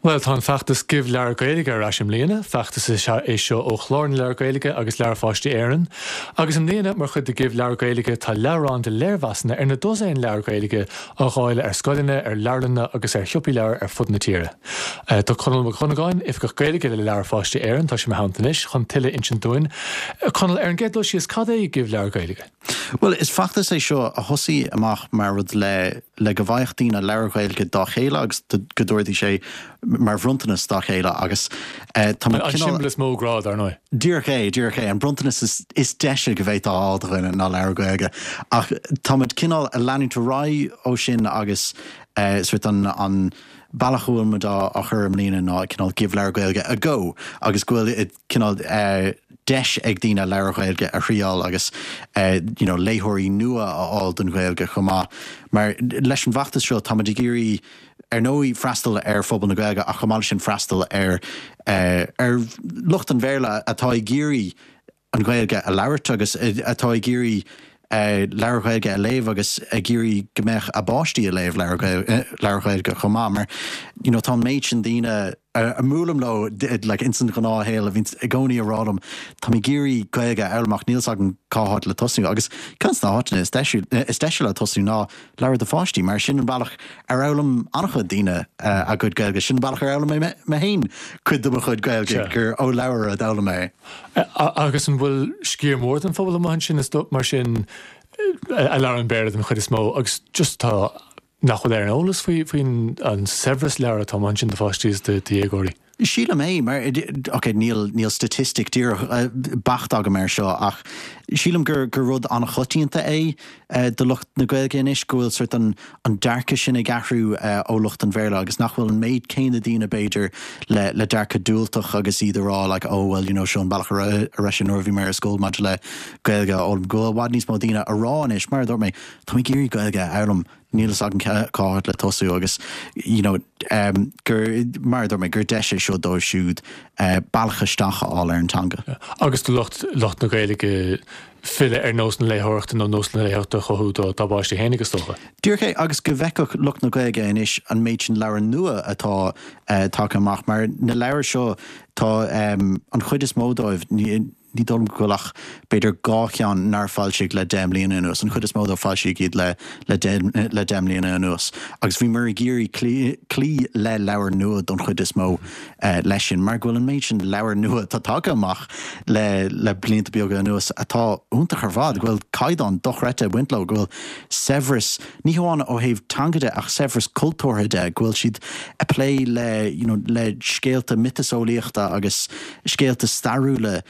Bhuel, tá an feachtas Give Leabhar Gaeilge ar ais i mbliana. Feachtas is ea é seo ó Chlár na Leabhar Gaeilge agus Leabhair Pháistí Éireann. Agus i mbliana, mar chuid de Give Leabhar Gaeilge, tá leabhrán de léirmheasanna ar na dosaein leabhar Gaeilge á dháileadh ar scoileanna, ar leabharlanna agus ar shiopaí leabhar ar fud na tíre. Tá Conall Mac Dhonnagáin, Oifigeach Gaeilge le Leabhair Pháistí Éireann, tá sé i mo theannta anois chun tuilleadh a insint dúinn. Conall, ar an gcéad dul síos, cad é Give Leabhar Gaeilge? Bhuel, is feachtas é seo a thosaigh amach mar rud le le go bhfaigheadh daoine leabhair Ghaeilge dá chéile agus go dtabharfaidís é mar bhronntanas dá chéile agus tá muid An cineál. siombail is mó grá, dar ndóigh. Díreach é, díreach é. An bronntanas is is deise go bhféadfá a fháil do dhuine ná leabhar Gaeilge. Ach tá muid cineál ag leanúint ar aghaidh ó sin agus sort an an bealach a bhfuil muid á á chur i mbliana ná cineál Give Leabhar Gaeilge a go agus go bhfuil cineál deis ag daoine leabhair Ghaeilge a thriáil agus you know léitheoirí nua a fháil don Ghaeilge chomh maith. Mar leis an bhfeachtas seo táimid ag iarraidh ar ndóigh freastal ar phobal na Gaeilge ach chomh maith leis sin freastal ar ar lucht an Bhéarla atá ag iarraidh an Ghaeilge a labhairt agus atá ag iarraidh leabhair Ghaeilge a léamh agus ag iarraidh go mbeadh a bpáistí ag léamh leabhair Ghaeilge chomh maith mar you know tá an méid sin daoine a mbuailim leo like ins an ghnáthshaol a bhíonns i gcónaí ag rá liom tá mé ag iarraidh Gaeilge a fhoghlaim ach níl 's agam cá háit le tosnú agus ceann de na háiteanna is deise is deise le tosnú ná leabhair do pháistí mar sin an bealach ar fhoghlaim an-chuid daoine a gcuid Gaeilge sin an bealach ar fhoghlaim mé mé féin cuid de mo chuid Gaeilge gur ó leabhar a d'fhoghlaim mé é. Agus an bhfuil sciar mór den phobal amuigh ansin is mar sin a labhrann Béarla den chuid is mó agus just tá nach bhfuil ar an eolas faoi faoin an saibhreas leabhar atá amuigh ansin do pháistí is do dhéagóirí? Sílim é, mar, ok, níl, níl staitistic díreach beacht agam air seo ach sílim gur, gur rud an-choitianta é do lucht na Gaeilge anois go bhfuil sort an, an dearcadh sin ag athrú ó lucht an Bhéarla agus nach bhfuil an méid céanna daoine b'fhéidir le, le dearcadh diúltach agus iad ag rá like oh well you know seo an bealach a raibh, a raibh sé nuair a bhí mé ar scoil maidir le Gaeilge a fhoghlaim. Go bhfuil i bhfad níos mó daoine ag rá anois, mar a dúirt mé, tá mé ag iarraidh Gaeilge a fhoghlaim, níl fhios agam cá háit le tosú agus you know gur, mar a dúirt mé, gur deis é seo dóibh siúd bealach isteach a fháil ar an teanga. Agus do lucht, lucht na Gaeilge filleadh ar nós na léitheoireachta nó nós na léitheoireachta a chothú dá bpáistí féinig is dócha. Díreach é, agus go bhfeicfeadh lucht na Gaeilge anois an méid sin leabhar nua atá tagtha amach, mar na leabhair seo tá an chuid is mó dóibh, ní, Ní dóigh liom go bhfuil ach b'fhéidir 2 cheann nár foilsíodh le 10 mbliana anuas. An chuid is mó dóibh foilsíodh iad le le le 10 mbliana anuas. Agus bhíomar ag iarraidh cloí cloí le leabhair nua don chuid is mó leis sin mar go bhfuil an méid sin leabhar nua atá tagtha amach le le blianta beaga anuas atá iontach ar fad, go bhfuil caighdeán dochreidte ag baint leo, go bhfuil saibhreas, ní hamháin ó thaobh teanga de ach saibhreas cultúrtha de, go bhfuil siad ag plé le you know le scéalta miotaseolaíochta agus scéalta stairiúla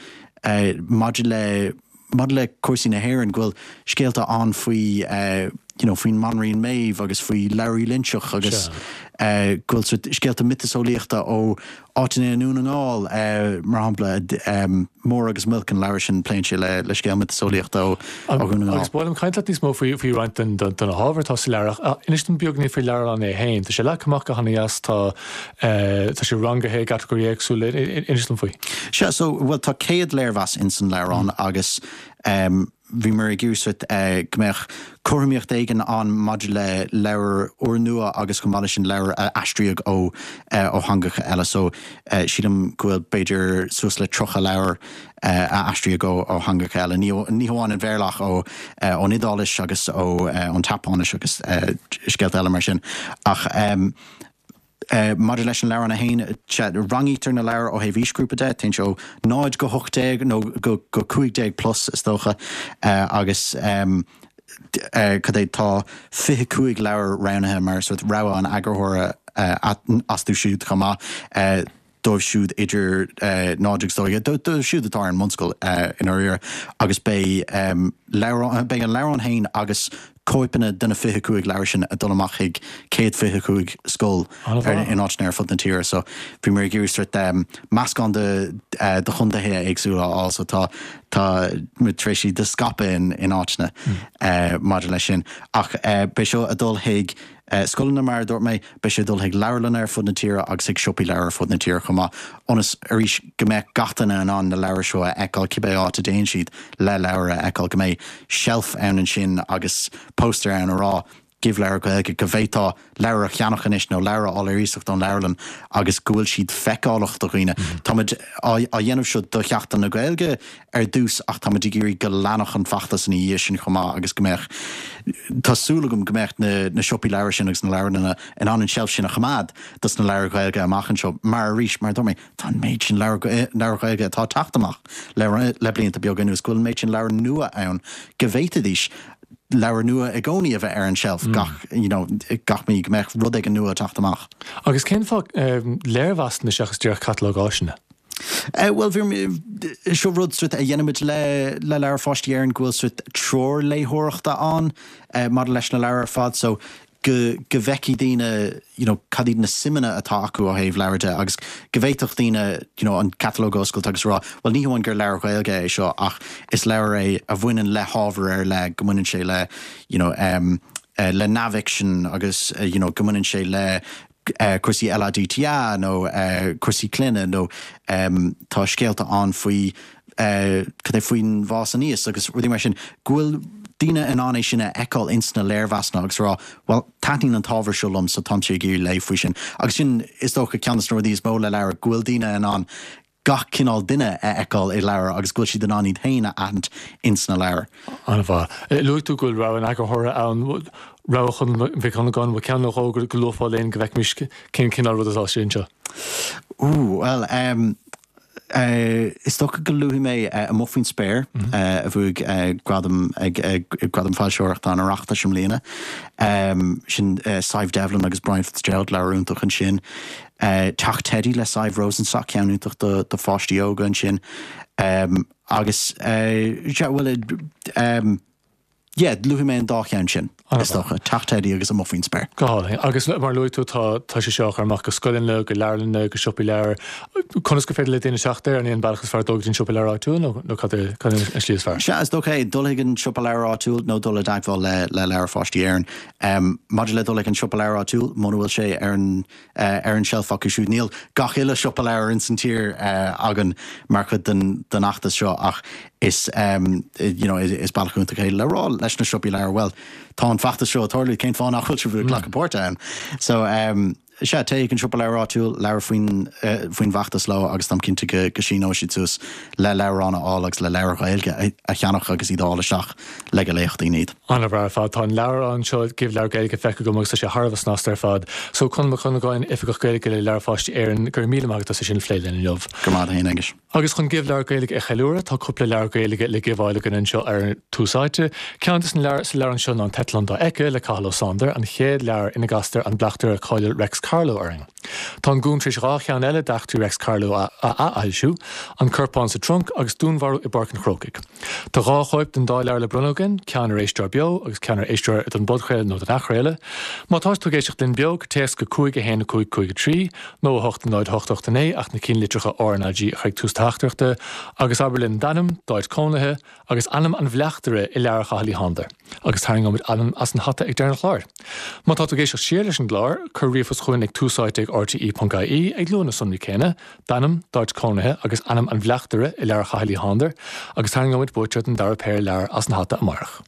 maidir le maidir le cúrsaí na hÉireann, go bhfuil scéalta ann faoi you know faoin mBanríon Méabh agus faoi Labhraí Loinseach agus go bhfuil sort scéalta miotaseolaíochta ó áiteanna i nDún na nGall, mar shampla, Mór agus Muilc, an leabhar sin, pléann sé le le scéal miotaseolaíochta ó Dhún na nGall. Agus ba mhaith liom caint leat níos mó faoi faoi roinnt den de na hábhair atá sa leabhar ach inis dom beagán faoin leabhrán é féin. Tá sé leagtha amach go hana-dheas, tá Tá sé rangaithe i gcatagóirí éagsúla. Inis dom faoi. Sea, so, bhuel, tá 100 léirmheas ins an leabhrán agus bhíomar ag iarraidh sort go mbeadh cothromaíocht éigin ann maidir le leabhair úrnua agus chomh maith leis sin leabhair a aistríodh ó ó theangacha eile. So, sílim go bhfuil b'fhéidir suas le 30 leabhar a aistríodh ó ó theangacha eile, ní ní hamháin an Bhéarla ach ó ón Iodáilis agus ó ón tSeapáinis agus scéalta eile mar sin. Ach. Maidir leis an leabhrán é féin, sea, rangaítear na leabhair ó thaobh aoisghrúpa de, téann sé ó 0 go 18 nó go 15 plus is dócha, agus cad é, tá 25 leabhar roghnaithe mar sort rogha an eagarthóra astu siúd chomh maith. dóibh siúd idir 0 agus 12, dóibh siúd atá ar an mbunscoil i ndáiríre, agus beidh leabhrán, beidh an leabhrán féin agus cóipeanna de na 25 leabhar sin ag dul amach chuig 125 scoil in áiteanna ar fud na tíre. So bhíomar ag iarraidh sort meascán de de chontaetha éagsúla a fháil so tá tá muid tar éis iad a scaipeadh in in áiteanna maidir leis sin. Ach beidh seo ag dul chuig Scoileanna, mar a dúirt mé, beidh sé ag dul chuig leabharlanna ar fud na tíre agus chuig siopaí leabhar ar fud na tíre chomh maith, ionas, arís, go mbeadh gach duine in ann na leabhair seo a fheiceáil cibé áit a dtéann siad le leabhar a fheiceáil, go mbeidh seilf ann ansin agus póstaer ann a rá. Give Leabhar Gaeilge, go bhféadfá leabhar a cheannach anois nó leabhar a fháil ar iasacht ón leabharlann agus go bhfuil siad feiceálach do dhaoine. Táimid á dhéanamh seo do Sheachtain na Gaeilge ar dtús ach táimid ag iarraidh go leanfadh an feachtas ina dhiaidh sin chomh maith agus go mbeadh, tá súil agam go mbeadh na siopaí leabhar sin agus na leabharlanna in ann an tseilf sin a choimeád dos na leabhair Ghaeilge amach anseo mar arís, mar a dúirt mé, tá an méid sin leabhar Gaeilge atá ag teacht amach le blianta beaga anuas, go bhfuil an méid sin leabhar nua ann go bhféadfaidís leabhar nua i gcónaí a bheith ar an tseilf gach, you know, gach mí, go mbeadh rud éigin nua ag teacht amach. Agus cén fáth léirmheasanna seachas díreach catalóg áiseanna? Bhuel, seo rud sort a dhéanaimid le le Leabhair Pháistí Éireann go bhfuil sort treoir léitheoireachta ann maidir leis na leabhair ar fad so go go bhfeicfidh daoine you know cad iad na suimeanna atá acu ó thaobh leabhar de agus go bhféadfadh daoine you know an catalóg a oscailt agus a rá bhuel ní hamháin gur leabhar Gaeilge é seo ach is leabhar é a bhaineann le hábhar ar leith, go mbaineann sé le you know um le neamhfhicsean agus you know go mbaineann sé le cúrsaí LADTA nó cúrsaí clainne nó tá scéalta ann faoi cad é faoin bhfás aníos agus rudaí mar sin, go bhfuil daoine in ann é sin a fheiceáil ins na léirmheasanna agus a rá bhuel taitníonn an t-ábhar seo liom so táimse ag iarraidh léamh faoi sin. Agus sin is dócha ceann de na rudaí is mó le leabhar, go bhfuil daoine in ann gach cineál duine a fheiceáil i leabhar agus go bhfuil siad in ann iad féin a aithint ins na leabhair. An-mhaith. Luaigh tú go bhfuil rogha an eagarthóra ann, rogha Chonal Mhic Dhonnagáin, bhfuil ceann nó dhó go luafá linn go bhfeicfimis cén cineál rud atá sé anseo? Ooh, bhuel, em, is dócha go luafaidh mé Amuigh Faoin Spéir, a bhuaigh gradam ag Gradam Foilsitheoireachta an Oireachtais i mbliana. Sin Sadhbh Devlin agus Brian Fitzgerald, leabhar iontach ansin. Teach Teidí le Sadhbh Rosenstock, ceann iontach do pháistí óga ansin. Agus, sea, bhuel, yeah, luafaidh mé an dá cheann sin, is dócha, Teach Teidí agus Amuigh Faoin Spéir. Go hálainn. Agus mar a luaigh tú, tá, tá sé seo á chur amach go scoileanna, go leabharlanna, go siopaí leabhar. Conas gur féidir le daoine teacht air? An é an bealach is fearr dul go dtí an siopa leabhar áitiúil nó, nó cad é, cad é an slí is fearr? Sea, is dócha é, dul chuig an siopa leabhar áitiúil nó dul i dteagmháil le, le Leabhair Pháistí Éireann. Maidir le dul ag an siopa leabhar áitiúil, muna bhfuil sé ar an ar an tseilf acu siúd, níl gach uile siopa leabhar ins an tír againn mar chuid den den fheachtas seo ach is you know is bealach iontach é le rá leis na siopaí leabhar, bhuel, tá an feachtas seo ag tarlú, cén fáth nach bhfuil sibh ag glacadh páirte ann? So. Sea, téigh chuig an siopa leabhar áitiúil, labhair faoin faoin bhfeachtas leo agus táim cinnte go go síneoidh siad suas le leabhrán a fháil agus le leabhair Ghaeilge a cheannach agus iad a fháil isteach le go léifeadh daoine iad. An-mhaith ar fad. Tá an leabhrán seo, Give Leabhar Gaeilge, feicthe agam agus tá sé thar a bheith snasta ar fad. So, Conall Mac Dhonnagáin, Oifigeach Gaeilge le Leabhair Pháistí Éireann, go raibh míle maith agat as é sin a phlé linn inniu. Go raibh maith agat féin, Aengus. Agus chun Give Leabhar Gaeilge a cheiliúradh, tá cúpla leabhar Gaeilge le giveáil againn anseo ar Tús Áite. Ceann de na leabhair sa leabhrán seo ná An tEitleán Dá Éice le Cathal Ó Sándair, an chéad leabhar ina gcastar an bleachtaire cáiliúil Reics Carló orainn. Tá an Gúm tar éis 2 cheann eile d'eachtraí Reics Carló a athfhoilsiú, An Corpán sa Trunc agus Dúnmharú i bPáirc an Chrócaigh. Tá 2 chóip den dá leabhar le bronnadh againn, ceann ar éisteoir beo agus ceann ar éisteoir don bpodchraoladh nó don athchraoladh. Má tá tú ag éisteacht linn beo, téacs go 5 1 5 5 3. nó 8 0 8 8 9 ach na cinnlitreacha RnaG a chur ag tús teachtaireachta agus abair linn d'ainm, d'áit cónaithe agus ainm an bhleachtaire i leabhar Chathail Uí Shándair agus tarraingeoimid ainm as an hata ag deireadh an chláir. Má tá tú ag éisteacht siar leis an gclár, cuir ríomhphost chugainn ag túsáite ag rte.ie ag lua na sonraí céanna, d'ainm, d'áit cónaithe agus ainm an bhleachtaire i leabhar Chathail Uí Shándair agus tarraingeoimid buaiteoir den dara péire leabhar as an hata amárach.